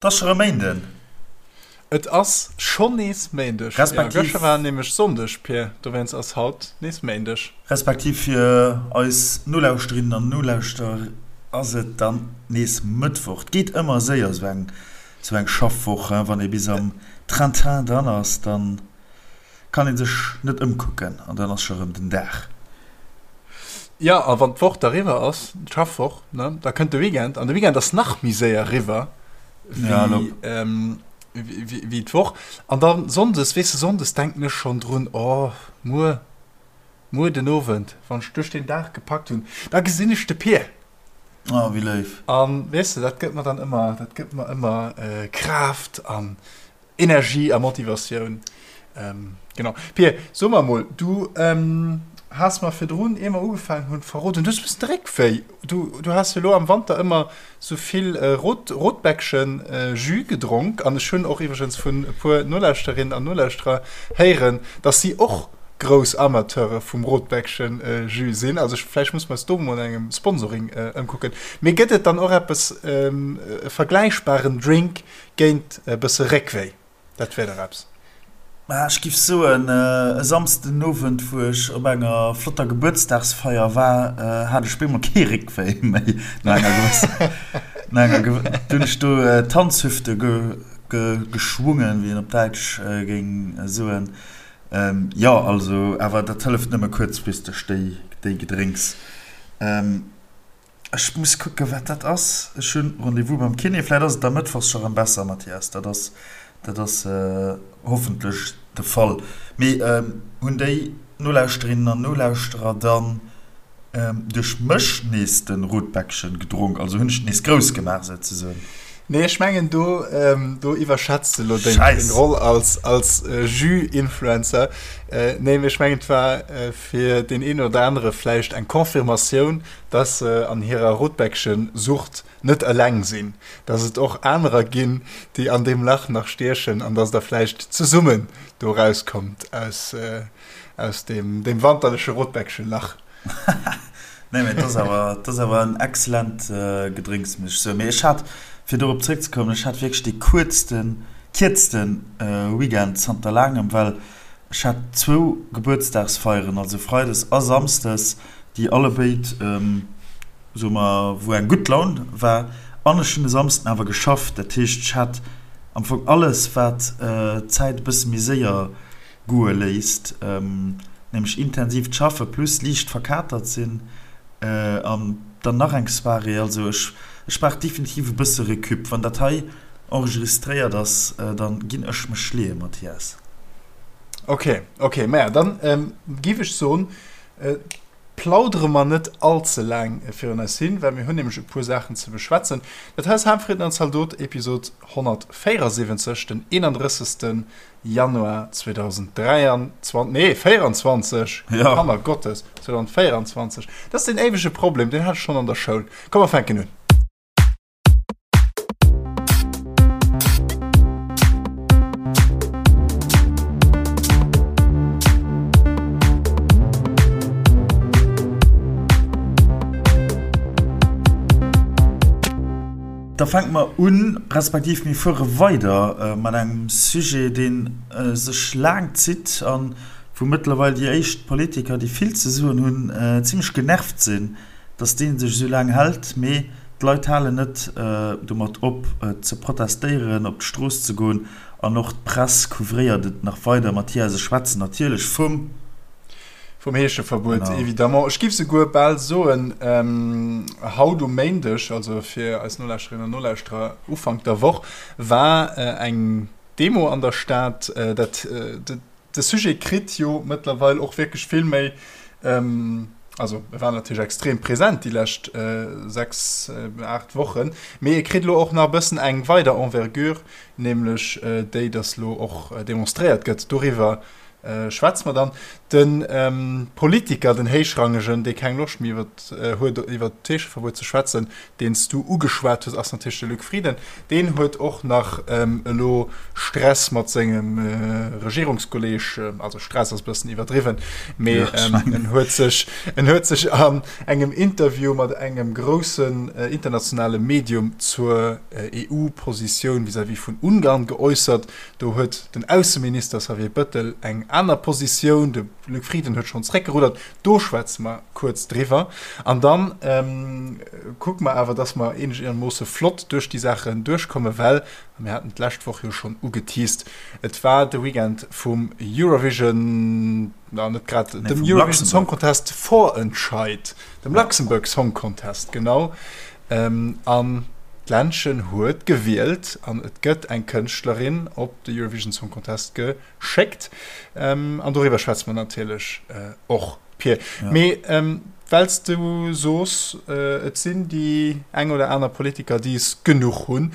Et ass scho rëm Méinden. Et ass schonn nees Méindeg. Respektiv. Jo, gëschter war nämlech Sonndeg, Pir, dowéinst ass haut nees Méindeg. Respektiv fir eis Nolauschterinnen an Nolauschterer ass et dann nees Mëttwoch. Et geet ëmmer séier, esou eng, esou eng Schaffwoch, hein. Wann ee bis am Train-Train dran ass, dann Kann een sech net ëmkucken an dann ass scho rëm den Dag. Jo, a wann d'Woch da riwwer ass, d'Schaffwoch, ne, da kënnt de Weekend an de Weekend ass nach méi séier riwwer wéi, wéi d'Woch. An da sonndes, weess de, sonndes denken ech schonn drun, oh, muer, muer den Owend, wann ech duerch den Dag gepackt hunn, da gesinn ech de Pir. Oh, wéi léif. An, weess de, dat gëtt mer dann ëmmer, dat gëtt mer ëmmer Kraaft an Energie a Motivatioun. Genau. Pir, so mer emol, du has mer virdrun, ier mer ugefaangen hunn, verroden, du hues e bëssen de Réck wéi. Du, du has jo elo am Wanter ëmmer sou vill Rot, Rotbäckchen-Jus gedronk. An ech hunn och iwwregens vun e puer Nolauschterinnen an Nolauschterer héieren, dass si och grouss Amateure vum Rotbäckchen-Jus sinn. Also ech, vläicht muss mer eis do emol no engem Sponsoring ëmkucken. Mee gëtt et dann och eppes, e vergläichbaren Drink, Géint e bësse Réckwéi, dat wär dach eppes. Mä ech giff soen, e Samsden den Owend, wou ech op enger flotter Gebuertsdagsfeier war, hat ech bemol kee Réckwéi méi. No enger gewësser, no enger gew, du hunn ech do d'Tanzhüfte ge, ge, geschwungen, wéi een op Däitsch géing soen. Jo, also, awer dat hëlleft nëmme kuerzfristeg, déi, déi Gedrénks. Ech muss kucken, wat dat ass. Ech hunn Rendez-vous beim Kiné. Vläit ass et da mëttwochs scho rëm besser, Mathias. Dat ass, dat ass hoffentlech de Fall. Mee hunn déi Nolauschterinnen an Nolauschterer dann duerch mech nees de Rotbäckchen gedronk? Also hunn ech et nees grouss gemaach, souzesoen? Nee, ech mengen, do, do iwwerschätz de lo deng, deng Roll als, als Jus-Influencer. Nee, mee ech mengen, et war fir deen een oder anere vläicht eng Confirmatioun, dass se an hirer Rotbäckchen-Sucht net eleng sinn, dass et och anerer ginn, déi an deem Lach nach stiechen an dass der vläicht zesummen do erauskommt aus, aus deem, deem wanterleche Rotbäckchen-Lach. Nee, mee et ass awer, et ass awer en excellent Gedrénks, muss ech soen. Mee ech hat, fir dorop zréckzekommen, ech hat wierklech dee kuerzten, kierzten Weekend zanter laangem, well ech hat zwou Gebuertsdagsfeieren, also freides a samsdes, déi allebéid, soe mer, wou eng gutt Laun war. An ech hunn e Samsden awer geschafft. Dat heescht, ech hat am Fong alles, wat d'Zäit e bësse méi séier goe léisst, nämlech intensiivt Schaffe plus liicht verkatert sinn an dann nach eng Soirée. Also ech, ech brauch definitiv e bësse Recup. Wann dat hei enregistréiert ass, da ginn ech mech leeë, Mathias. Ok, ok, maja, dann giff ech soen, plaudere mer net all ze laang virun eis hin, well mir hunn nämlech e puer Saachen ze beschwätzen. Dat hei ass Harmfrieden an Zaldot, Episod 174, den 31. Januar 2023, nee 24, ja. Kanner Gottes, 2024. Dat ass den éiwege Problem, deen hat ech schonn an der Schoul. Komm, mer fänken un. Da fänke mer un, respektiv mir fuere weider mat engem Sujet, dee sech laang zitt a wou mëttlerweil déi éischt Politiker, déi vill ze soen hunn, zimlech genervt sinn, dass dee sech esou laang hält. Mee d'Leit halen net domat op, ze protestéieren, op d'Strooss ze goen an och d'Press couvréiert et nach weider. Mathias, ech schwätzen natierlech vum. Vum Heescheverbuet, évidemment. Ech géif souguer bal soen, haut um Méindeg, also fir eis Nolauschterinnen an Nolauschterer Ufank der Woch, war eng Demo an der Stad. Dat, de Sujet kritt jo mëttlerweil och wierklech vill méi, also e war natierlech extrem present déi lescht 6, 8 Wochen, mee e kritt elo och nach e bëssen eng weider Envergure, nämlech déi, datt elo och demonstréiert gëtt doriwwer. schwätze mer dann. De Politiker, den Héichrangegen, dee keng Loscht méi huet iwwert d'Heescheverbuet ze schwätzen, deen s du ugeschwat hues, ass natierlech de Luc Frieden. Deen huet och nach elo Stress mat sengem Regierungskolleeg, also Stress ass e bëssen iwwerdriwwen, mee en huet sech, en huet sech an engem Interview mat engem groussen internationale Medium zur EU-Positioun vis-à-vis vun Ungarn geäussert. Do huet den Ausseminister Xavier Bëttel eng aner Positioun, de Luc Frieden huet schonn zréckgeruddert. Do schwätze mer kuerz driwwer. An da kucke mer awer, dass mer eenegermoosse flott duerch déi Saachen duerchkommen, well, a mir haten d'lescht Woch jo schonn ugeteast, et war de Weekend vum Eurovision, na net grad dem Eurovision Song Contest Vorentscheid, dem Luxembourg Song Contest, genau. An d'Ländchen huet gewielt an et gëtt eng Kënschtlerin op de Eurovision Song Contest geschéckt. An doriwwer schwätze mer natierlech och, Pir. Mee well s du soos, et sinn déi eng oder aner Politiker, déi es genuch hunn,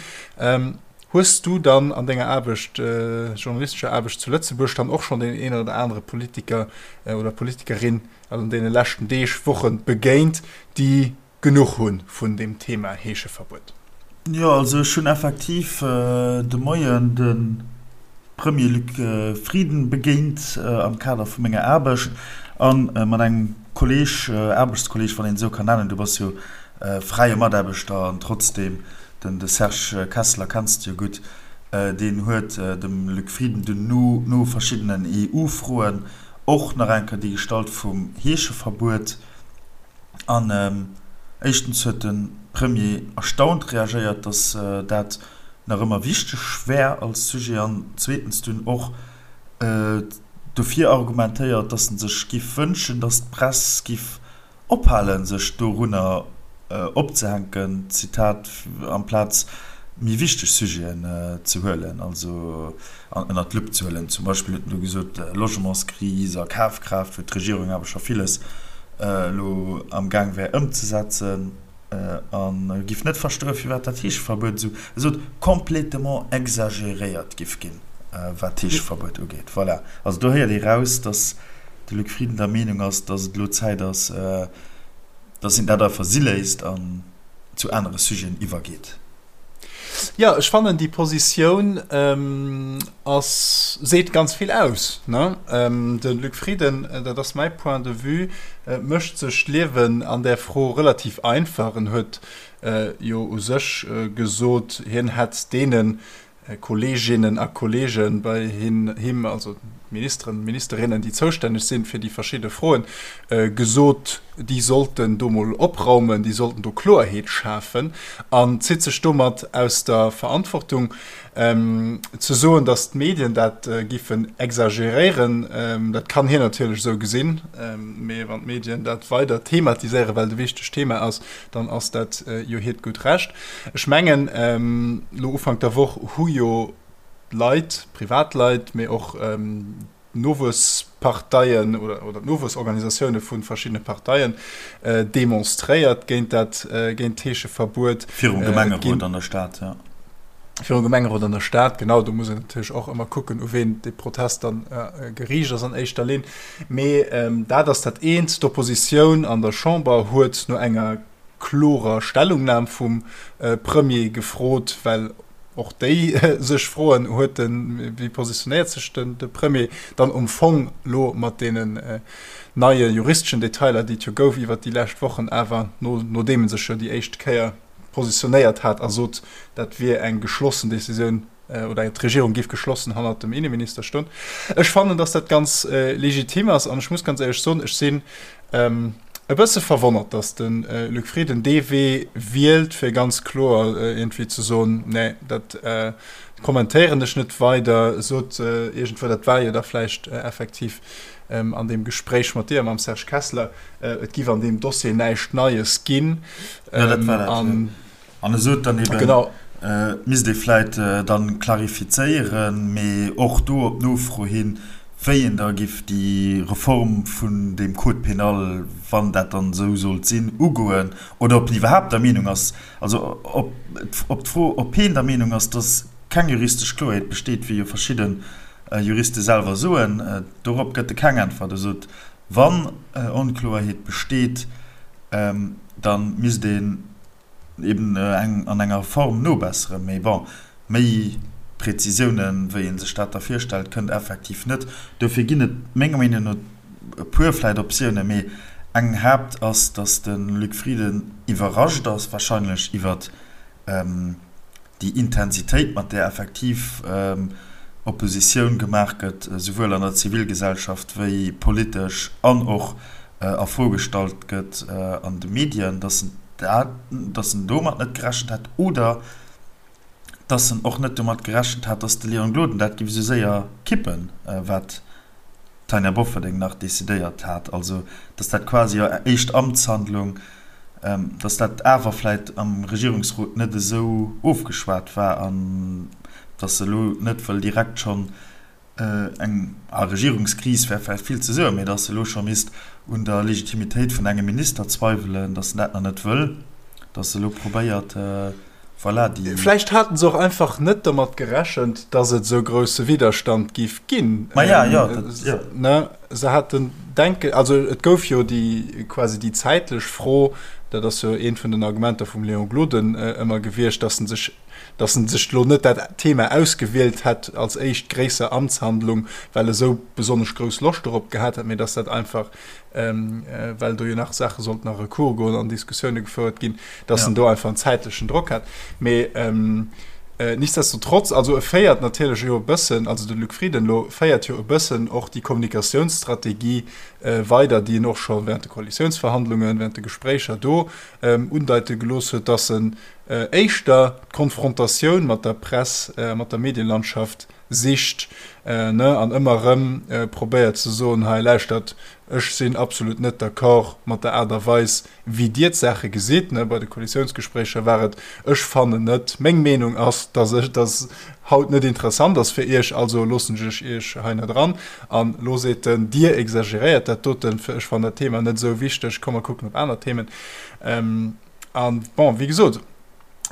hues du dann an denger Aarbecht, journalistescher Aarbecht zu Lëtzebuerg, dann och schonn deen een oder anere Politiker oder Politikerin an deene leschten Deeg, Woche begéint, déi genuch hu vun deem Thema Heescheverbuet? Jo, also ech hunn effektiv de Moien de Premier Luc Frieden begéint am Kader vu menger Aarbecht a mat engem Kolleeg, Aarbechtskolleeg, wann een esou kann nennen, du bass jo fräie Mataarbechter an trotzdeem, den de Serge Kessler kenns de jo gutt, deen huet dem Luc Frieden dunn no verschiddenen EU-Froen och nach eng Kéier déi gestallt vum Heescheverbuet. An éischtens huet de Premier erstaunt reagéiert, datt dat nach ëmmer wichteg wär als Sujet, an zweetens dunn och dofir argumentéiert, datt en sech giff wënschen, datt d'Press giff ophalen, sech dorunner opzehänken, Zitat, amplaz méi wichteg Sujeten ze huelen, also an ënnert d'Lupp ze huelen. Zum Beispill huet en do gesot, Logementskris a Kafkraaft, wou d'Regierung awer scho villes elo am Gaang wär ëmzesetzen, a giff net verstoen, firwat dat Heescheverbuet esou, e sot, complétement exagéréiert giff ginn, wat d'Heescheverbuet ugeet. Voilà. Also do héiert ee raus, datt de Luc Frieden der Meenung ass, datt et elo Zäit ass, datt een dat einfach si léisst an zu anere Sujeten iwwergeet. Jo, ech fannen déi Positioun ass, seet ganz vill aus, ne? De Luc Frieden, dat ass mäi Point de vue, mécht sech d'Liewen an där Fro relativ einfach. En huet jo u sech gesot, hien hätt deene Kolleeginnen a Kolleege bei him, also d'Ministeren, Ministerinnen, déi zoustänneg sinn fir déi verschidde Froen, gesot, déi sollten do mol opraumen, déi sollten do Kloerheet schafen, an zitt sech domat aus der Verantwortung. Ze soen, datt d'Medien dat giffen exageréieren, dat kann hien natierlech esou gesinn, mee wann d'Medien dat weider thematiséieren, well et e wichtegt Thema ass, dann ass dat jo hiert gutt Recht. Ech mengen, elo Ufank der Woch hu jo Leit, Privatleit, mee och d'Nowuessparteien oder d'Nowuessorganisatioune vu verschiddene Parteien demonstréiert géint dat, géint d'Heescheverbuet. Virum Gemengerot an der Stad, jo. Virum Gemengerot an der Stad, genau. Do muss een natierlech och ëmmer kucken, u ween dee Protest dann geriicht ass an éischter Linn. Mee dat ass dat eent. D'Oppositioun an der Chamber huet no enger klorer Stellungnam vum Premier gefrot, well och déi sech froen, huet den, wéi positionéiert sech den de Premier dann um Fong elo mat deenen neie juristeschen Detailer, déi et jo gouf iwwert déi lescht Wochen, awer no nodeem e sech jo déi éischt Kéier positionéiert hat a sot, dat wier eng geschlossen Decisioun oder d'Regierung géif geschlossen hannert dem Inneminister stoen. Ech fannen, datt dat ganz legitim ass an ech muss ganz éierlech soen, ech sinn e bësse verwonnert, datt de Luc Frieden dee Wee wielt, fir ganz kloer iergendwéi ze soen, nee, dat kommentéieren ech net weider, sot iergendwou, dat war jo da vläicht effektiv an deem Gespréich mat dir a mam Serge Kessler, et giff an deem Dossier näischt Neies ginn. Jo, dat war dat, jo. An e sot dann eben, et misst ee vläit dann klarifizéieren, mee och do op Nofro hin, wéi een da giff déi Reform vun deem Code pénal, wann dat dann esou sollt sinn, ugoen, oder ob en iwwerhaapt der Meenung ass, also op d'Fro, ob heen der Meenung ass, dass keng juristesch Kloerheet besteet, wéi jo verschidde. Juriste selwer soen? Dorop gëtt e keng Äntwert. E sot, wann Onkloerheet besteet, da misst een eben eng an enger Form nobesseren. Mee bon, méi Präzisiounen, wéi ee sech dat da virstellt, kënnt effektiv net. Dofir ginn et menger Meenung no e puer vläicht Optiounen, mee eng Haapt ass, datt de Luc Frieden iwwerrascht ass wahrscheinlech iwwert déi Intensitéit, mat där effektiv Oppositioun gemaach gëtt, souwuel an der Zivilgesellschaft wéi politesch an och a Fro gestallt gëtt an de Medien, datt en dat, datt en domat net gerechent hat oder datt en och net domat gerechent hat, datt de Léon Gloden dat géif esou séier kippen, wat d'Tanja Bofferding nach decidéiert hat, also datt dat quasi hir éischt Amtshandlung, datt dat awer vläit am Regierungsrot net esou ofgeschwat war an datt se elo net wëll direkt schonn eng, a Regierungskris wär vläicht vill ze soen, mee datt se elo scho misst un der Legitimitéit vun engem Minister zweiwelen, datt se dat nach net wëll, datt se elo probéiert, Voilà, déi. Vläicht haten se och einfach net domat gerechent, dass et esou grousse Widderstand giff ginn. Ma ja, jo, dat, jo. Ne, se haten denke, also et gouf jo déi, quasi déi zäitlech Fro, dat ass jo eent vun den Argumenter vum Léon Gloden ëmmer gewiescht, dass en sech, dass en sech elo net dat Thema ausgewielt hätt als éischt gréisser Amtshandlung, well e sou besonnesch grouss Loscht dorop gehat hätt, mee dass dat einfach well do jo nach Saache sollten a Recours goen an Diskussioune gefouert ginn, dass en do einfach en zäitlechen Drock hat. Mee nichtsdestotrotz, also e féiert natierlech jo e bëssen, also de Luc Frieden elo féiert jo e bëssen och déi Kommunikatiounsstrategie weider, déi en och scho während de Koalitiounsverhandlungen, während de Gespréicher do undeite gelooss huet, dass en éischter d'Konfrontatioun mat der Press, mat der Medienlandschaft sicht, ne, an ëmmer erëm probéiert ze soen, hei lauschtert, ech sinn absolut net d'accord mat der Aart a Weis, wéi Dir d'Saache gesitt, ne. Bei de Koalitiounsgespréicher war et, ech fannen net, meng Meenung ass, dass ech, dass haut net interessant ass fir Iech, also loossen ech Iech hei net eran. An elo seet en, Dir exageréiert dat doten, ech fannen dat Thema net esou wichteg, komm mer kucken op aner Themen. An bon, wéi gesot,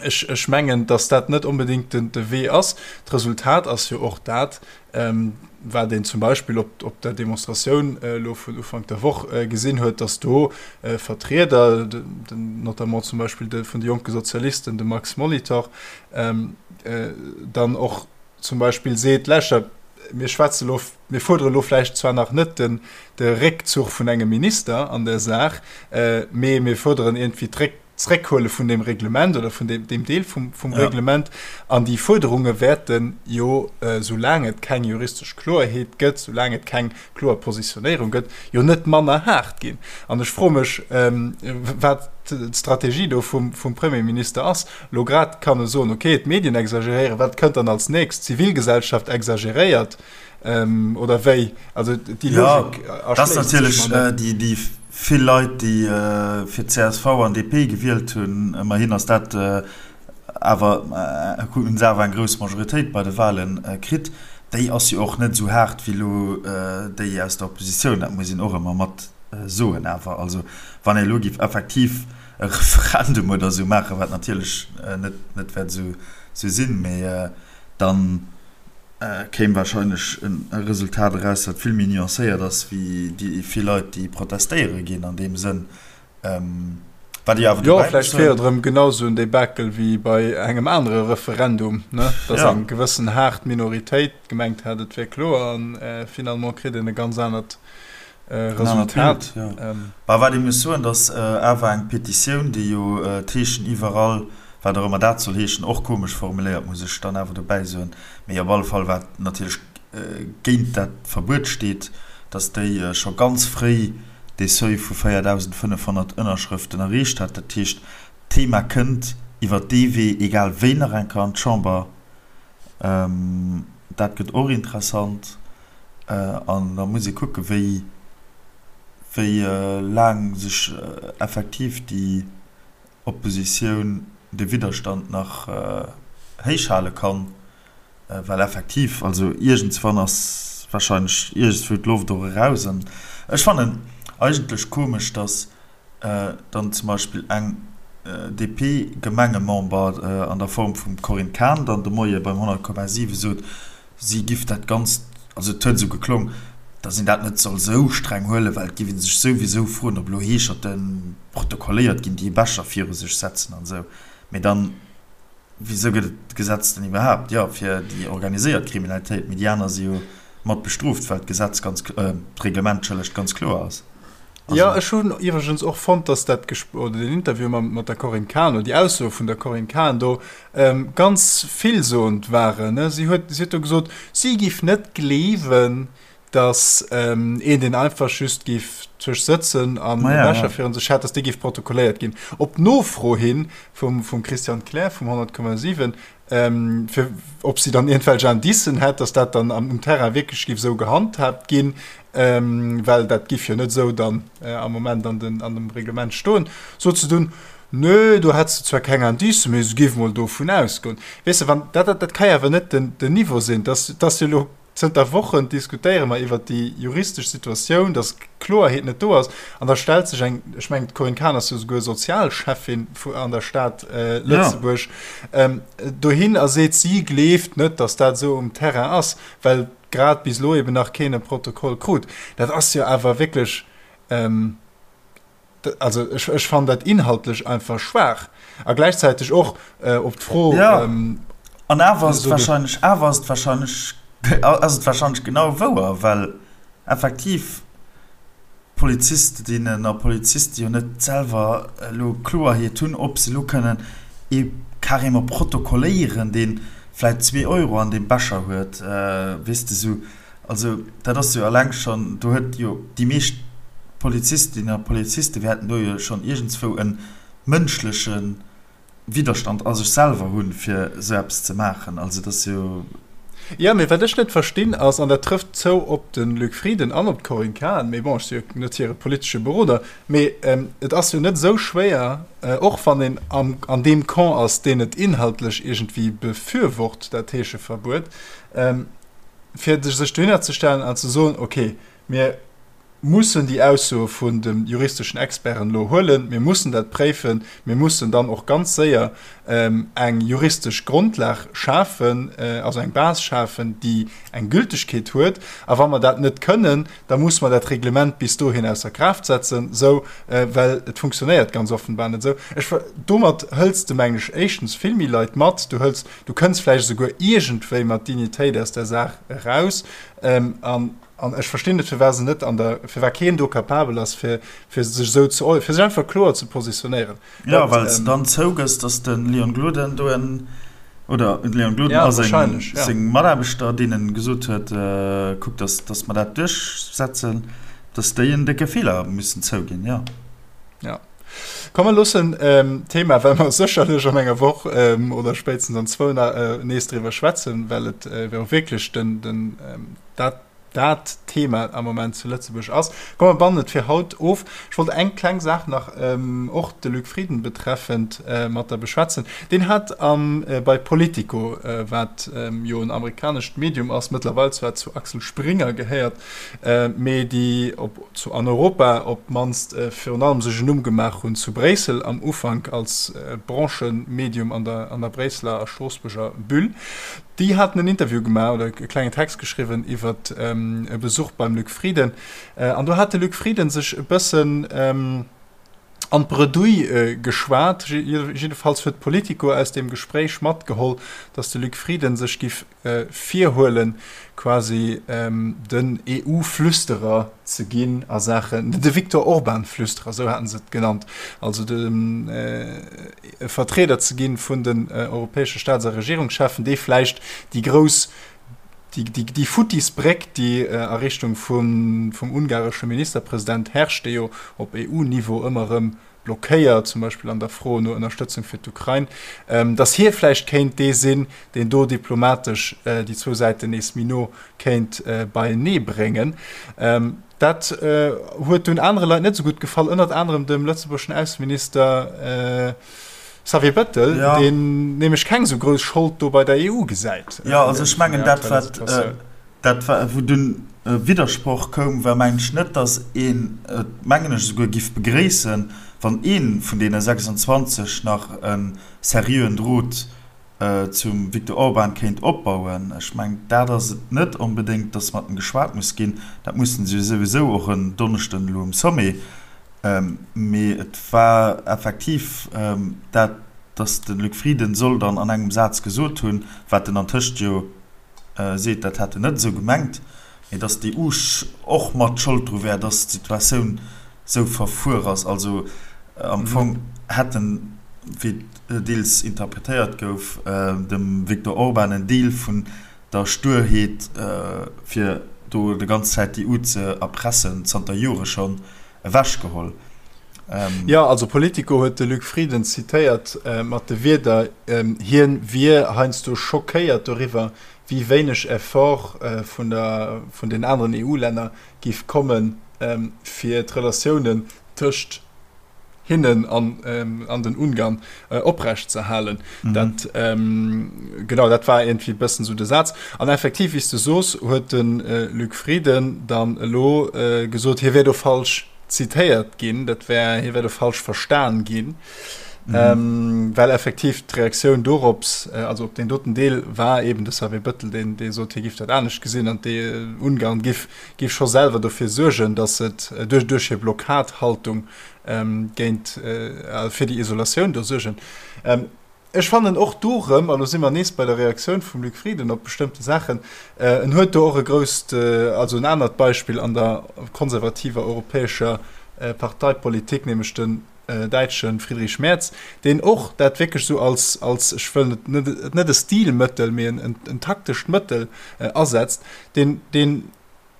ech, ech mengen, datt dat net onbedéngt den, de Wee ass. D'Resultat ass jo och dat, wat een zum Beispill op, op der Demonstratioun elo vun Ufank der Woch gesinn huet, datt do Vertrieder, den, notamment zum Beispill de vun de Jonke Sozialisten, de Max Molitor, dann och zum Beispill seet, Lauschtert, mir schwätze lo, mir fuerdere lo vläicht zwar nach net den, de Réckzuch vun engem Minister an der Saach, mee mir fuerderen iergendwéi d'Réck, d'Zréckhuele vun deem Reglement oder vun deem, deem Deel vum, vum ja. Reglement. An déi Fuerderunge wäerte jo, soulaang et keng juristesch Kloerheet gëtt, soulaang et keng kloer Positionéierung gëtt, jo net manner haart ginn. An ech froe mech, wat d'Strategie do vum, vum Premierminister ass. Elo grad kann e soen, okay, d'Medien exageréieren, wat kënnt dann als nächst? D'Zivilgesellschaft exageréiert oder wéi? Also déi Logik erschléisst sech mer net. Dat ass natierlech déi vill Leit, déi fir csv an DP gewielt hunn, ëmmerhin ass dat awer, hunn se awer eng grouss Majoritéit bei de Wahlen kritt, déi ass jo och net esou haart wéi elo déi aus der Oppositioun. Dat muss een och ëmmer mat soen awer. Also wann ee elo géif effektiv e Referendum oder esou maachen, wat natierlech net net wäert esou sinn, mee dann kéim wahrscheinlech e Resultat eraus, wat vill méi nuancéiert ass wéi déi vill Leit, déi protestéiere ginn an deem Sënn. Wat ech awer dobäi muss soen. Jo, vläicht wier et erëm genau esou en Debakel wéi bei engem anere Referendum, ne, dass eng gewëssen haart Minoritéit gemengt hat, et wier kloer, a finalement kritt een e ganz anert Resultat. Bah, wat ee muss soen, datt awer eng Petitioun, déi jo d'Heeschen iwwerall, wat och ëmmer dat soll heeschen, och komesch formuléiert, muss ech dann awer dobäi soen, mee op alle Fall wat natierlech géint dat Verbuet steet, datt déi scho ganz fréi dee Seuil vu 4.500 Ënnerschrëften erreecht hat. Dat heescht, d'Thema kënnt iwwer dee Wee egal wéi nach eng Kéier an d'Chamber. Dat gëtt och interessant. An da muss ee kucken, wéi, wéi laang sech effektiv déi Oppositioun, de Widderstand nach héichhale kann. Well effektiv, also iergendswann ass wahrscheinlech iergendswou d'Loft och eraus. An ech fannen eigentlech komesch, datt dann zum Beispill eng DP-Gemengemember an der Form vum Corinne Cahen dann de Moie beim 100,7 sot, si giff dat Ganzt. also et huet esou geklong, datt een dat net soll esou streng huelen, well et géif ee sech souwisou froen, ob elo Heescherte protokolléiert ginn, déi e Becher viru sech setzen an esou. Mee dann, wisou gëtt et d'Gesetz dann iwwerhaapt? Jo, fir déi organiséiert Kriminalitéit, mee déi aner si jo mat bestrooft, well d'Gesetz ganz, d'Reglement, entschëllegt, ganz kloer ass. Jo, ech hunn iwwregens och fonnt, dass dat Gespr oder den Interview mam, mat der Corinne Cahen oder déi Aussoe vun der Corinne Cahen do ganz villsoend waren. Si huet, si huet do gesot, si giff net gleewen, dass een, deen einfach just giff zwësch sëtzen an e Becher virun sech hätt, dass dee giff protokolléiert ginn. Op Nofro hi vum, vum Christian Klär vum 100,7 fir ob si dann iergendwelch Indicen hätt, dass dat dann um Terrain wierklech géif esou gehandhaabt ginn, well dat géif jo net esou dann am Moment an den, an dem Reglement stoen, sot se dunn, Nö, do hätt se zwar keng Indicen, mee se géif mol dovun ausgoen. Weess de, wann dat, dat ka jo awer net den, den Niveau sinn, dass, dass jo elo Zënter Wochen diskutéiere mer iwwert déi juristesch Situatioun, datt Kloerheet net do ass. An da stellt sech eng, ech mengen d'Corinne Cahen ass jo souguer Sozialschäffin an der Stad Lëtzebuerg, dohin a seet, si gleeft net, datt dat esou um Terrain ass, well grad bis elo eben nach keen e Protokoll krut. Dat ass jo awer wierklech, Also ech, ech fannen dat inhaltlech einfach schwaach a gläichzäiteg och äh, op d'Fro. Ja. Ähm, an awer ass et wahrscheinlech, awer ass et wahrscheinlech, ass et wahrscheinlech genau wouer, well effektiv Polizistinnen a Poliziste jo net selwer elo Kloerheet hunn, ob se elo kënnen ee carrément protokolléieren, dee vläit zwee Euro an deem Becher huet, weess de, sou. Also dat ass jo eleng schonn, do huet jo déi meescht Polizistinnen a Poliziste wäerten do jo schonn iergendswou e mënschleche Widderstand a sech selwer hunn, fir esou eppes ze maachen. Also dat ass jo. Jo, mee wat ech net verstinn ass, an dat trëfft zou op de Luc Frieden an op d'Corinne Cahen, mee bon, ech si jo net hire politesche Beroder, mee et ass jo net esou schwéier, och wann een an deem Camp ass, deen et inhaltlech iergendwéi befürwort, dat Heescheverbuet, fir sech dohinner ze stellen an ze soen, okay, mir mussen déi Aussoe vun de juristeschen Experten elo huelen, mir mussen dat préifen, mir mussen dann och ganz séier eng juristesch Grondlag schafen, also eng Base schafen, déi eng Gültegkeet huet. A wa mer dat net kënnen, da musse mer dat Reglement bis dohin ausser Kraaft setzen, esou, well et funktionéiert ganz offenbar net esou. Ech, domat hëls de, mengen ech, éischtens vill méi Leit mat, du hëls Du kënns vläicht esouguer iergendwéi mat Dignitéit aus där Saach eraus. An, an ech verstinn net, firwat se net an der, firwat keen do capabel ass, fir, fir sech esou ze, fir sech einfach kloer ze positionéieren. Jo, well s de dann zougëss, datt de Leon Gloden do en, oder de Leon Gloden a seng, seng Mataarbechter, deenen gesot huet, kuckt, datt, datt mer dat duerchsetzen, datt déi en décke Feeler müssen zouginn, jo. Jo. Komm mer loossen d'Thema, well mer sécherlech an enger Woch oder spéitstens an zwou nees driwwer schwätzen, well et jo wierklech den, den, dat, dat Thema am Moment zu Lëtzebuerg ass. Komm mer bannen et fir haut of. Ech wollt eng kleng Saach nach, och de Luc Frieden betreffend, mat der beschwätzen. Deen hat am, bei Politico, wat jo en amerikanescht Medium ass, mëttlerweil zwar zu Axel Springer gehéiert, mee déi op zu an Europa op d'mannst virun allem sech en Numm gemaach hunn zu Bréissel am Ufank als Branchemedium an der an der Bréisseler a Stroossbuerger Bulle. Déi haten en Interview gemaach oder e klengen Text geschriwwen iwwer e Besuch beim Luc Frieden an do hat de Luc Frieden sech e bëssen an d'Bredouille geschwat. Jiddefalls huet Politico aus deem Gespréich matgeholl, datt de Luc Frieden sech giff virhuelen, quasi den EU-Flüsterer ze ginn a Saachen, de Viktor Orban-Flüsterer, esou haten se et genannt, also de Vertrieder ze ginn vun den europäesche Staats a Regierungscheffen, dee vläicht déi grouss, déi futtis Bréck, déi a Richtung vum ungaresche Ministerpresident herrscht, dee jo op EU-Niveau ëmmer erëm blockéiert, zum Beispill an der Fro no Ënnerstëtzung fir d'Ukrain, datt hie vläicht kéint dee sinn, deen do diplomatesch déi zwou Säiten nees méi no kéint beienee bréngen. Dat huet dunn anere Leit net esou gutt gefall, ënnert anerem dem lëtzebuergeschen Ausseminister Xavier Bettel, deen nämlech keng esou grouss Schold do bei der EU gesäit. Jo, also ech mengen dat wat Dat wou dunn e Widdersproch koum, war mengen ech net, datt een et, mengen ech, esouguer giff begréissen, wann ee vun deene 26 nach e seriöen Drot. Zum Viktor Orban kéint opbauen. Ech mengen, dat ass et net onbedéngt, datt mat em geschwat muss ginn. Dat mussen se jo souwisou och en Donneschden elo um Sommet. Mee et war effektiv dat, datt de Luc Frieden soll dann an engem Saz gesot hunn, wat en antëscht jo seet, dat hätt en net esou gemengt, mee datt d'EU och mat Schold dru wär, datt d'Situatioun esou verfuer ass. Also am Fong hätt en, wéi et deels interpretéiert gouf, dem Viktor Orban en Deel vun der Sturheet, fir do de ganz Zäit d'EU ze erpressen, zanter Jore schonn, ewechgeholl. Jo, also Politico huet de Luc Frieden zitéiert mat de Wierder, hien wier heiansdo schockéiert doriwwer, wéi wéineg Effort vun der vun den aneren EU-Länner giff kommen, fir d'Relatiounen tëscht hinnen an an den Ungarn oprecht ze halen. Dat genau dat war iergendwéi e bëssen esou de Saz. An effektiv, wéi s de soos, huet de Luc Frieden dann elo gesot, hie wär do falsch zitéiert ginn, dat wär, hie wär do falsch verstan ginn, well effektiv d'Reaktioun dorops, also op deen doten Deel, war eben de Xavier Bettel, deen dee sot, hie giff dat anescht gesinn an d'Ungarn giff giff scho selwer dofir suergen, datt et duerch duerch hir Blockadhaltung géint fir déi Isolatioun do suergen. Ech fannen och do erëm, an do si mer nees bei der Reaktioun vum Luc Frieden op bestëmmte Saachen, en huet do och e grousst, also en anert Beispill an der konservativer europäescher Parteipolitik, nämlech den däitsche Friedrich Merz, deen och dat wierklech esou als, als, ech wëll et net, net e Stilmëttel, mee en, en taktescht Mëttel asetzt, deen, deen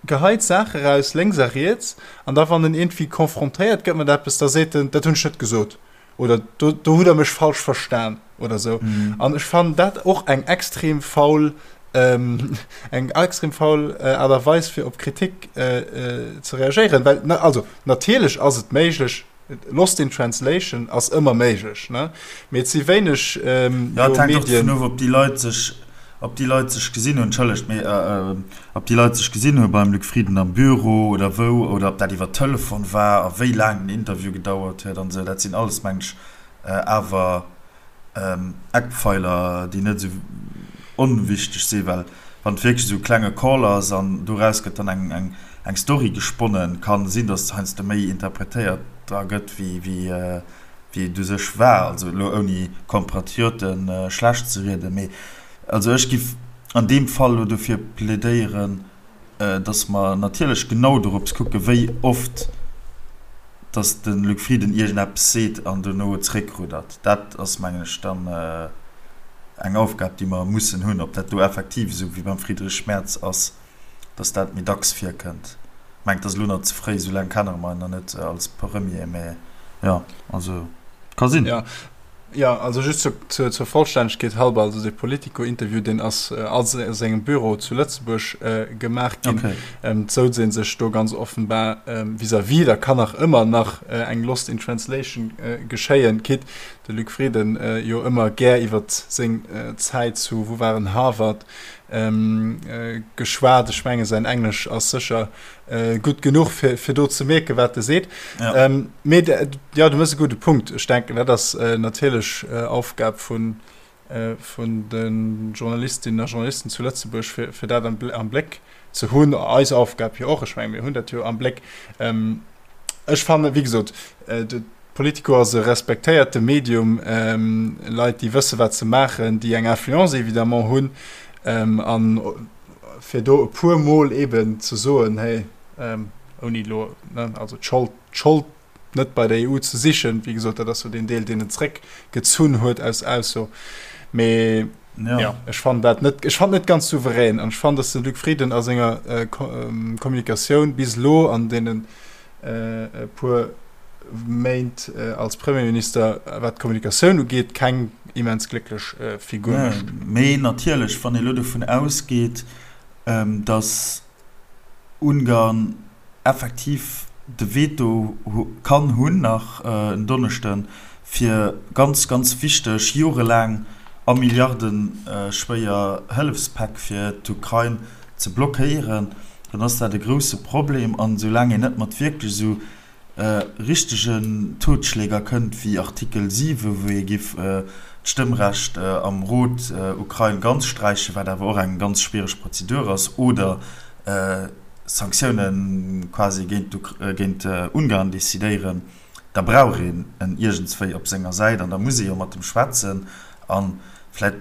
geheit Saache raus, lénks a riets, an da wann en iergendwéi confrontéiert gëtt mat eppes, da seet en, dat hunn ech net gesot oder do, do hutt Der mech falsch verstan oder esou. An ech fannen dat och eng extrem faul, eng extrem faul Aart a Weis fir op Kritik ze reagéieren, well, also natierlech ass et méiglech, Lost in Translation ass ëmmer méiglech, ne? Mee et si wéineg jo Jo, et hänkt och dovun of, ob déi Leit sech, ob déi Leit sech gesinn hunn, entschëllegt, mee ob déi Leit sech gesinn hu beim Luc Frieden am Büro oder wou, oder ob dat iwwer Telefon war a wéi laang den Interview gedauert huet an esou. Dat sinn alles, meng ech, awer Eckpfeiler, déi net esou onwichteg sinn, well wann et wierklech esou e klenge Call ass an doraus gëtt dann eng, eng, eng Story gesponnen, kann sinn, datt heiansdo méi interpretéiert dra gëtt, wéi, wéi, wéi et u sech war. Also elo ouni Compatriote schlecht ze rieden, mee also ech giff an deem Fall elo dofir plädéieren, dass mer natierlech genau dorops kucken, wéi oft dass de Luc Frieden iergendeppes seet an dono zréckruddert. Dat ass, mengen ech, dann eng Aufgab, déi mer mussen hunn. Ob dat do effektiv esou wéi beim Friedrich Merz ass, dass dat méi dacks virkënnt, mengt, dat ass elo nach ze fréi, esou laang kenne mer en nach net als Premier, mä jo, also ka sinn. Jo, also just zur, zur Vollstännegkeet halber, also dee Politico-Interview, deen ass a sengem Büro zu Lëtzebuerg gemaach ginn. Okay. Et souz ee sech do ganz offenbar vis-à-vis. Da kann nach ëmmer nach eng Lost in Translation geschéien, quitte de Luc Frieden jo ëmmer gär iwwer seng Zäit zu, wou war en, Harvard geschwat. Ech menge säin Englesch ass sécher gutt genuch fir, fir do ze mierken, wat e seet. Ja. Ähm, mee ja, du mëss e gudde Punkt. Ech denken, dat ass äh, natierlech äh, Aufgab vun, äh, vun de Journalistinnen a Journalisten zu Lëtzebuerg, fir, fir dat am, am Bléck ze hunn. Eis Aufgab jo och. Ech menge mir hunn dat jo am Bléck. Ähm, ech fanne, wéi gesot, äh, de Politico ass e respektéierte Medium, ähm, Leit, déi wësse wat se maachen, déi eng Influence évidemment hunn ähm, an fir do e puer Mol eben ze soen, hey, ouni elo, ne, also d'Schold, d'Schold net bei der EU ze sichen, wéi gesot, dat ass jo deen Deel, deen en zréckgezunn huet aus Ausso, mee ja. ja, ech fannen dat net, ech fannen net ganz souverän an ech fannen, datt de Luc Frieden a senger Kommunikatioun bis elo an deenen e puer Méint als Premierminister, wat d'Kommunikatioun ugeet, keng immens glécklech Figur mécht. Mee natierlech, wann ee elo dovun ausgeet, datt Ungarn effektiv de Veto kann hunn nach en Donneschden, fir ganz, ganz wichteg, jorelaang a milliardeschwéier Hëllefspäck fir d'Ukrain ze blockéieren, dann ass dat e grousse Problem. An esoulaang een net mat wierklech esou richtegen Totschläger kënnt wéi Artikel 7, wou ee giff. d'Stëmmrecht am Rot Ukrain ganz sträichen, wat awer och eng ganz schwiereg Prozedur ass, oder Sanktioune quasi géint Ungarn decidéieren, da brauch een en iergendswéi op senger Säit an da muss ee jo mat em schwätzen a vläicht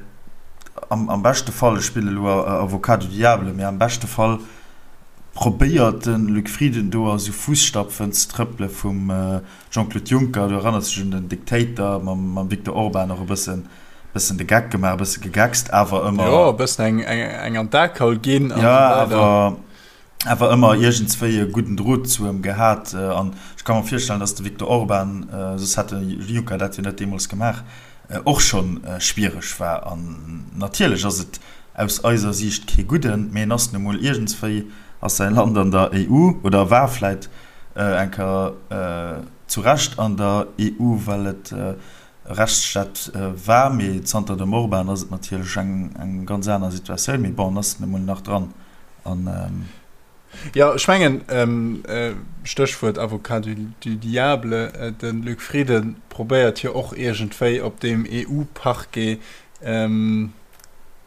am beschte Fall, ech spillen elo Avocat du diable, mee am beschte Fall probéiert de Luc Frieden do a sou Fusstapfen ze trëppele vum Jean-Claude Juncker, du erënners dech un den Dictator mam Viktor Orban, och e bëssen bëssen de Geck gemaach, e bësse gegeckst, awer ëmmer. Jo, e bëssen eng, eng, eng an d'Akaul ginn an esou weider. Jo, awer, awer ëmmer iergendswéi e gudden Drot zu em gehat. An ech ka mer virstellen, datt de Viktor Orban, soss hätt de Juncker dat jo net deemools gemaach, och schonn schwiereg war. An natierlech ass et aus eiser Siicht kee gudden, mee en ass nu mol iergendswéi ass säi Land an der EU oder war vläit eng Kéier zu Recht an der EU, well et e Rechtsstaat war. Mee zanter dem Orban ass et natierlech eng ganz aner Situatioun. Mee bon, en ass nu mol nach dran. An. Jo, ech mengen, Stéchwuert Avocat du diable, de Luc Frieden probéiert jo och iergendwéi op deem EU-Parquet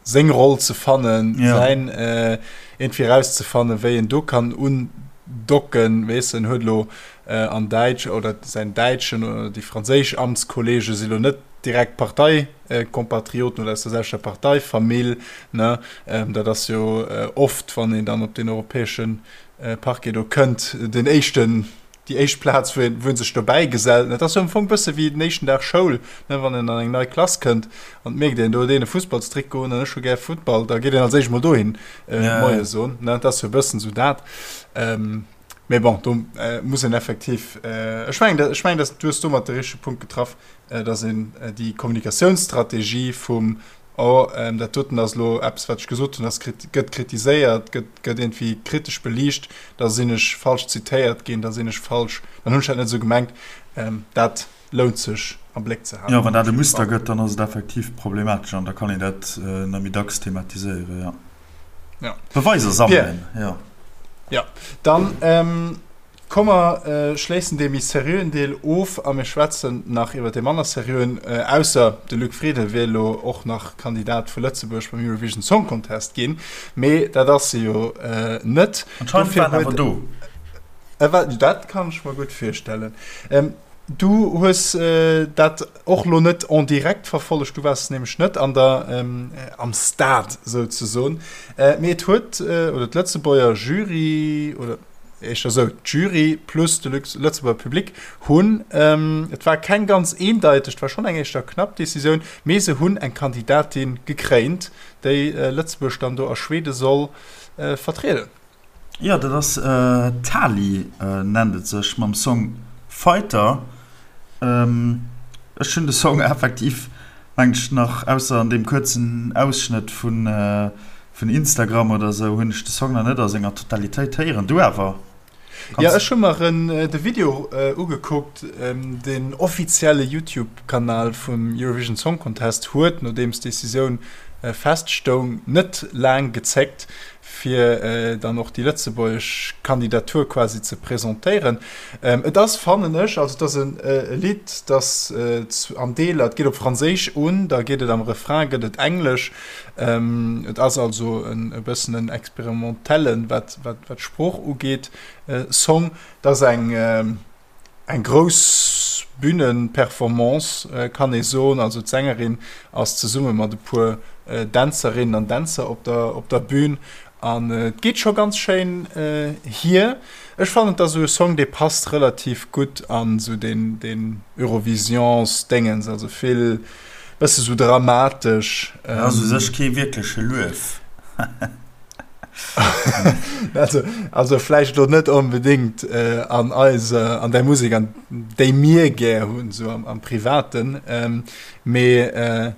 seng Roll ze fannen, ja. säin äh, irgendwie rauszefannen, wéi en do kann undocken, weess en huet lo äh, an Däitsch oder säin däitschen oder déi franséisch Amtskollege si lo net direkt Parteikompatrioten oder aus der selwechter Parteifamill, ne? Ähm, dat ass jo äh, oft, wann een dann op den europäeschen äh, Parquet do kënnt, den éischten déi éischt Plaz, wou een, wou een sech dobäi gesellt. Dat ass jo am Fong bësse wéi den éischten Dag Schoul, ne, wann een an eng nei Klass kënnt an et mierkt een, do huet een e Fussballstrikot un an ech hu gär Futtball, da geet een als éischt mol dohin Moie soen, ne. Dat ass jo e bëssen esou dat. Mee bon, do muss een effektiv, ech mengen, ech mengen, dass du hues domat de richtege Punkt getraff, dass een déi Kommunikatiounsstrategie vum Oh, dat doten ass elo eppes, wat ech gesot hunn, ass gëtt kritiséiert, gëtt gëtt iergendwéi kritesch beliicht, da sinn ech falsch zitéiert ginn, da sinn ech falsch, dann hunn ech dat net esou gemengt. Dat lount sech am Bléck ze halen. Jo, wann dat e Muster gëtt, dann ass et effektiv problematesch an da kann een dat nach méi dacks thematiséieren, jo. Ja. Beweiser sammelen, jo. Jo, dann. Komm mer schléissen dee méi seriöen Deel of a mir schwätzen nach iwwer dee manner seriöen. Ausser de Luc Frieden wier elo och nach Kandidat vu Lëtzebuerg beim Eurovision Song Contest ginn, mee dat ass e jo net. Anscheinend war en awer do. E war, dat kann ech mer gutt virstellen. Du hues dat och lo net en direct verfollegt, du waars nämlech net an der, am Stade souzesoen, mee et huet, oder d'Lëtzebuerger Jury, oder, éischter esou, d'Jury plus de Lëtzebuerger Public hunn, et war keng ganz eendeiteg, et war schonn eng éischter knapp Decisioun, mee se hunn eng Kandidatin gekréint, déi Lëtzebuerg dann do a Schwede soll vertrieden. Jo, dat ass d'Tali, nennt et sech, mam Song Fighter. Ech hunn de Song effektiv, mengen ech, nach, ausser an deem kuerzen Ausschnëtt vun Vun Instagram oder sou hunn ech de Song nach net a senger Totalitéit héieren. Du awer? Jo, ech hu mer de Video ugekuckt. Den offizielle Youtube-Kanal vum Eurovision Song Contest huet, nodeems d'Decisioun feststoung, net laang gezéckt, fir dann och déi lëtzebuergesch Kandidatur quasi ze presentéieren. Et ass, fannen ech, also et ass e Lidd, dat an Deeler, et geet op Franséisch un, da geet et am Refrain gëtt et Englesch, Et ass also e bëssen en experimentellen, wat d'Sprooch ugeet, Song. Et ass eng grouss Bühnenperformance, kann ee soen. Also d'Sängerin ass zesumme mat e puer Dänzerinnen an Dänzer op der Bühn an et geet scho ganz schéin hier. Ech fannen, et ass esou e Song, dee passt relativ gutt an esou den Eurovisions-Déngens, also vill Bësse sou dramatesch. Dat ass u sech kee wierkleche Luef. Also, also vläicht elo net onbedéngt an eiser, an där Musek, an déi mir gär hunn, sou am, am Privaten. Mee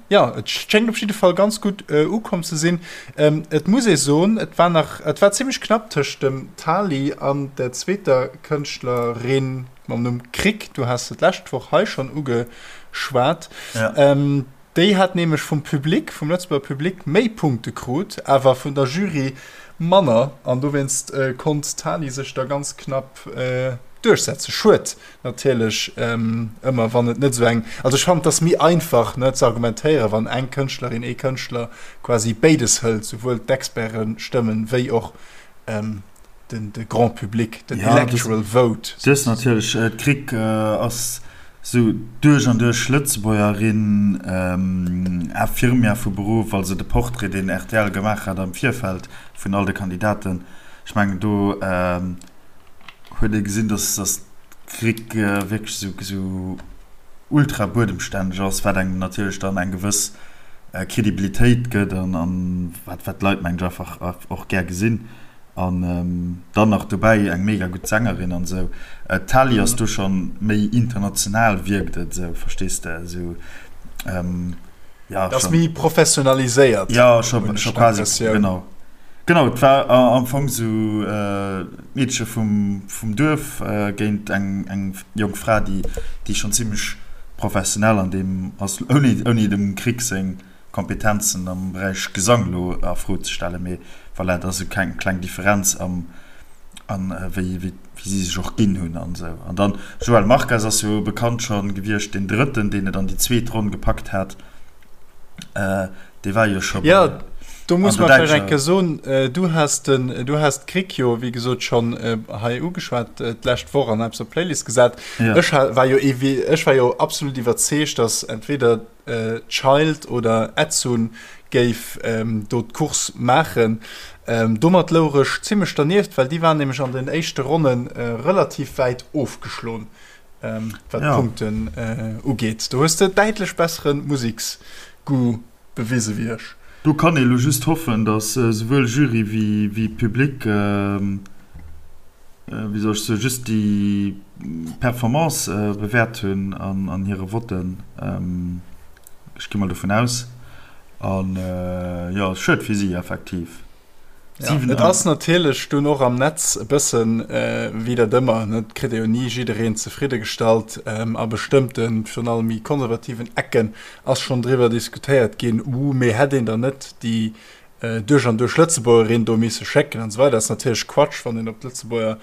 jo, et schéngt op jidde Fall ganz gutt ukomm ze sinn. Et muss ee soen, et war nach, et war zimmlech knapp tëscht dem Tali an der zweeter Kënschtlerin. Mam Numm Krick, du has se d'lescht Woch hei schonn ugeschwat. Ja. Ähm, déi hat nämlech vum Public, vum Lëtzebuerger Public méi Punkte krut, awer vun der Jury manner. An dowéinst äh, konnt d'Tali sech da ganz knapp äh, duerchsetzen. Schued natierlech ëmmer, wann et net esou eng, also ech fannen, et ass méi einfach, ne, ze argumentéieren, wann eng Kënschtlerin, ee Kënschtler quasi béides hëlt, souwuel d'Expertestëmmen wéi och den de Grand Public, den electoral vote. Du hues natierlech, d'Krick ass esou duerch an duerch Lëtzebuergerin, Infirmière vu Beruff, also de Portrait, deen rtl gemaach hat am Virfeld vun all de Kandidaten, ech mengen do huet ee gesinn, dass d'Krick wierklech esou ultra buedemstänneg ass, wat engem natierlech dann eng gewëss Kredibilitéit gëtt an wat d'Leit, mengen ech, einfach och gär gesinn. An dann nach dobäi eng mega gutt Sängerin an esou. D'Tali ass do schonn méi international, wierkt et esou, verstees de, esou, ja. Dat ass méi professionaliséiert. Jo, scho quasi, genau. Genau, et war am Fong esou d'Meedche vum Duerf géint eng jonk Fra, déi schonn zimmlech professionell an deem ass, ouni dem Krick seng Kompetenzen am Beräich Gesang elo a Fro ze stellen, mee voilà, et ass esou eng kleng Differenz am an wéi wéi si sech och ginn hunn an esou. An dann Joel Marques ass jo bekannt schonn gewiescht, deen Drëtten, deen et an déi zweet Ronn gepackt hat, dee war jo scho bei Jo, do muss mer vläicht eng Kéier soen, du has den, du has d'Krick jo wéi gesot schonn hei ugeschwat d'lescht Woch an eppes op d'Playlist gesat. Ech war jo, ech war jo absolut iwwerzeegt, datt entweder Child oder Edsun géif do d'Course maachen. Domat louch ech zimmlech dernieft, well déi waren nämlech an den éischte Ronne relativ wäit ofgeschloen, wat d'Punkten ugeet. Do hues de däitlech bessere Museksgoût bewise wéi ech. Do kann ee lo just hoffen, datt souwuel Jury wéi Public wéi soll ech soen, just déi Performance bewäert hunn an hire Votten. Ech gi mol dovun aus. An jo, schued fir si effektiv. Ja, et ass natierlech dunn och am Netz e bëssen wéi dat ëmmer, ne, et kritt ee jo ni jiddereen zefridde gestallt. A bestëmmten, virun allem méi konservativen Ecken ass schonn driwwer diskutéiert ginn, uh, mee hätt een dann net déi duerch an duerch Lëtzebuergerin do misse schécken an esou weider. Dat ass natierlech Quatsch, wann een op d'Lëtzebuerger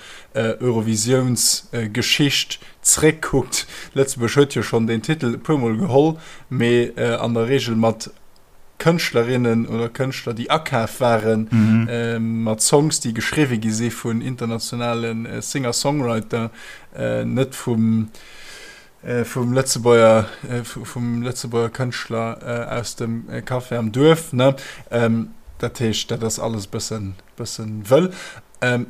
Eurovisiounsgeschicht zréckkuckt. Lëtzebuerg huet jo schonn deen Titel e puermol geholl, mee an der Reegel mat Kënschtlerinnen oder Kënschtler, déi akaf waren, mat Songs, déi geschriwwe gi si vun internationale Singer-Songwriter, net vum vum Lëtzebuerger, vum Lëtzebuerger Kënschtler aus dem Café am Duerf, ne? Dat heescht, dat ass alles e bëssen, bëssen wëll.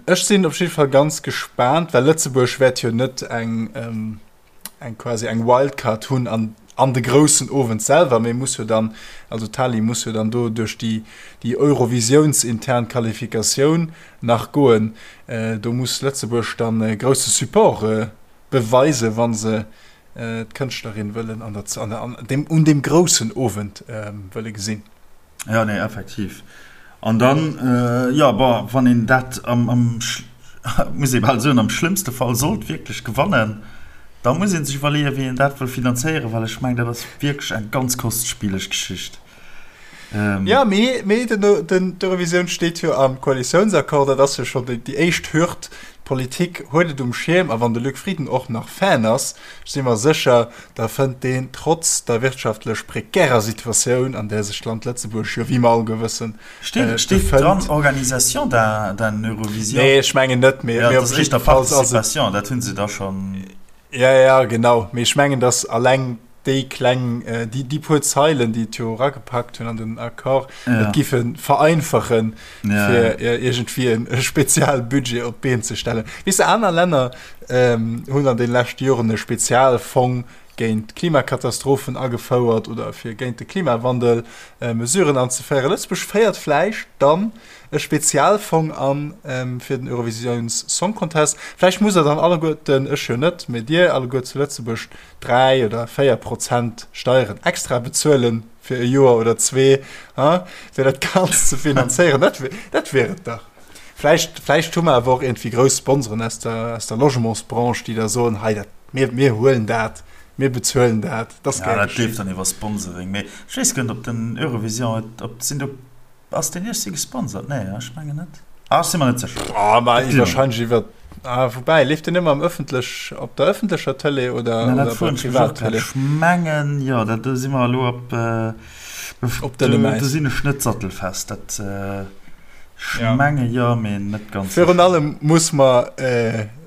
Ech sinn op jidde Fall ganz gespaant, well Lëtzebuerg wäert jo net eng, eng quasi eng Wildcard hunn an, an de groussen Owend selwer, mee muss jo dann, also d'Tali muss jo dann do duerch déi, déi eurovisiountsintern Qualifikatioun nach goen. Do muss Lëtzebuerg dann e grousse Support beweisen, wa se d'Kënschtlerin wëllen an der, an der, an deem, un deem groussen Owend wëlle gesinn. Jo, nee, effektiv. An dann, jo, bon, wann een dat am, am, muss ee bal soen, am schlëmmste Fall sollt wierklech gewannen, da muss ee sech iwwerleeën, wéi een dat wëll finanzéieren, well ech mengen, dat ass wierklech eng ganz kostspieleg Geschicht. Ja, mee, mee den, den, d'Eurovisioun steet jo am Koalitiounsaccord, dat ass jo schonn déi, déi éischt Hürd. D'Politik huet et um Schierm a wann de Luc Frieden och nach Fan ass, ech si mer sécher, da fënnt deen trotz der wirtschaftlech prekärer Situatioun, an där sech d'Land Lëtzebuerg jo, wéi mer alleguer wëssen, Steet, steet dran Organisation d'un, d'un Eurovision? Nee, ech mengen net, mee, ja, mee op jidde Fall ass et. Participation, dat hunn se da schonn. Ja, ja, genau. Mee ech mengen, datt alleng déi kleng, déi, déi puer Zeilen, déi et jo eragepackt hunn an den Accord, ja. et giffe vereinfachen, ja. fir iergendwéi en e Spezialbudget op d'Been ze stellen. Weess de, aner Länner ähm, hunn an den leschte Joren e Spezialfong géint Klimakatastrophen agefouert oder fir géint de Klimawandel äh, Mesuren anzeféieren. Lëtzebuerg féiert vläicht dann e Spezialfong an fir den Eurovisiouns Song Contest. Vläicht musst der dann alleguerten, ech jo net, mee dir alleguer zu Lëtzebuerg 3 oder 4 Prozent Steieren extra bezuelen fir e Joer oder zwee, ha, fir dat Ganzt ze finanzéieren. Dat wär, dat wär et dach. Vläicht, vläicht hu mer awer och iergendwéi grouss Sponsoren aus der, aus der Logementsbranche, déi da soen, hei, dat, mir, mir huelen dat, mir bezuelen dat. Dat ass gär geschéen. Ja, dat leeft dann iwwer Sponsoring. Mee ech weess guer net, ob den Eurovision et, ob, sinn do Ass deen iergsi gesponsert? Nee, ech mengen net. Ah, ech si mer net sécher. Ah, ma wahrscheinlech iwwer. Ah, woubäi, leeft deen ëmmer am ëffentlech, op der ëffentlecher Tëlee oder, Na, oder dat bei froen ech mech och grad. Privattëlee? Ech mengen, jo, dat, do si mer elo op, Op dënnem do, Äis. do sinn ech net sattelfest. Dat, ech Ja. menge jo, mee net ganz Virun sécher. allem muss mer,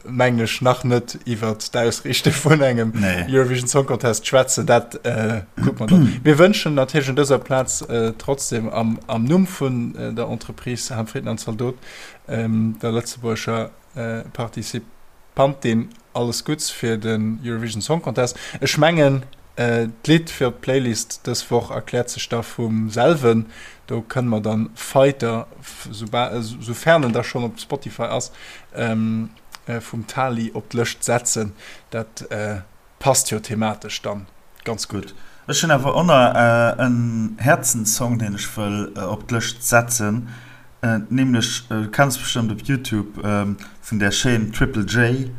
mengen ech, nach net iwwert d'Ausriichte vun engem Nee. Eurovision Song Contest schwätzen. Dat kucke mer dann. Mir wënschen natierlech un dëser Plaz trotzdem am, am Numm vun der Entreprise Ham Frieden an Zaldot, der lëtzebuergescher Participantin alles Gutts fir den Eurovision Song Contest. Ech mengen d'Lidd fir op d'Playlist dës Woch erkläert sech da vum selwen. Do kënne mer dann Fighter, soufern en da schonn op Spotify ass, vum Tali op d'Lëscht setzen. Dat passt jo thematesch dann ganz gutt. Ech hunn awer och nach en Häerzenssong, deen ech wëll op d'Lëscht setzen, nämlech, du kenns bestëmmt op Youtube vun där Chaîne Triple J,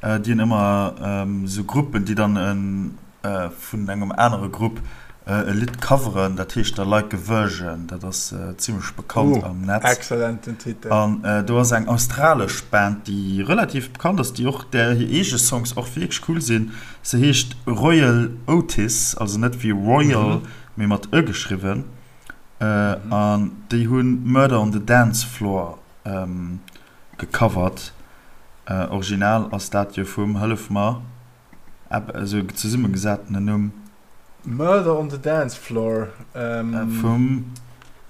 déi hunn ëmmer esou Gruppen, déi dann vun engem anere Grupp e Lidd coveren, dat heescht da Like a Virgin, dat ass zimmlech bekannt am Netz. Excellenten Titel. An do ass eng australesch Band, déi relativ bekannt ass, déi och, där hir eege Songs och wierklech cool sinn. Se heescht Royel Otis, also net wéi Royal, mee mat e geschriwwen. An déi hu Murder on the Dance Floor gecovert. Original ass dat jo vum, hëllef mer, Esou zesummegesatene Numm. Murder on the Dance Floor vum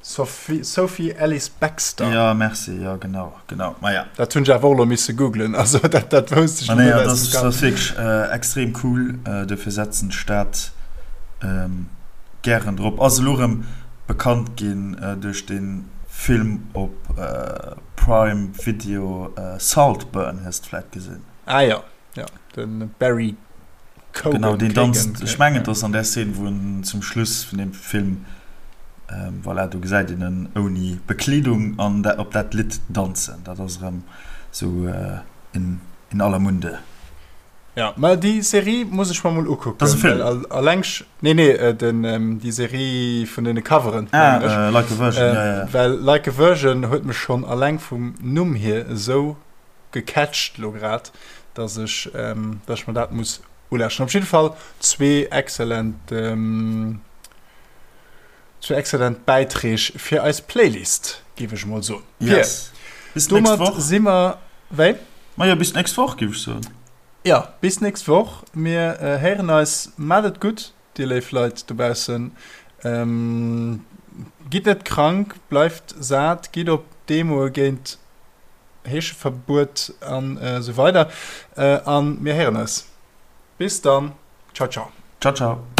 Sophie Ellis Bextor. Jo, merci, jo genau, genau, maja. Dat hunn ech awer och elo misse googlen, also dat dat wousst ech elo net aus dem Kapp. Dat ass wierklech extrem cool, dofir setzen ech dat gären drop. Ass elo erëm bekannt ginn duerch de Film op Prime Video Saltburn, hues de vläit gesinn? Ah jo. Ja, den Barry Cogan. Genau, deen danzt. Ech mengen, et ass an där Szene, wou en zum Schluss vun deem Film, voilà, do gesäit een en ouni Bekleedung an op dat Lidd danzen. Dat ass erëm sou in aller Munde. Ja, mä déi Serie muss ech mer mol ukucken. Dat ass e Film? Alleng, nee, nee, den, déi Serie vun deene Coveren, mengen ech. Ah, Like a Virgin, ja, ja. Well Like a Virgin huet mech schonn alleng vum Numm hier esou gecatcht lo grad, dass ech dass ech mer dat muss ulauschteren. Op jidde Fall zwee excellent zwee excellent Bäiträg fir eis Playlist, géif ech emol soen. Yes. Bis d'nächst Woch. Si mer wéi? Majo, bis d'nächst Woch, géif ech soen. Jo, bis d'nächst Woch. Mir héieren eis. Maacht et gutt, dir léif Leit dobaussen. Gitt net krank, bleift sat, gitt op Demoe géint Heescheverbuet an esou weider. An mir héieren eis. Bis dann. Ciao ciao. Ciao ciao.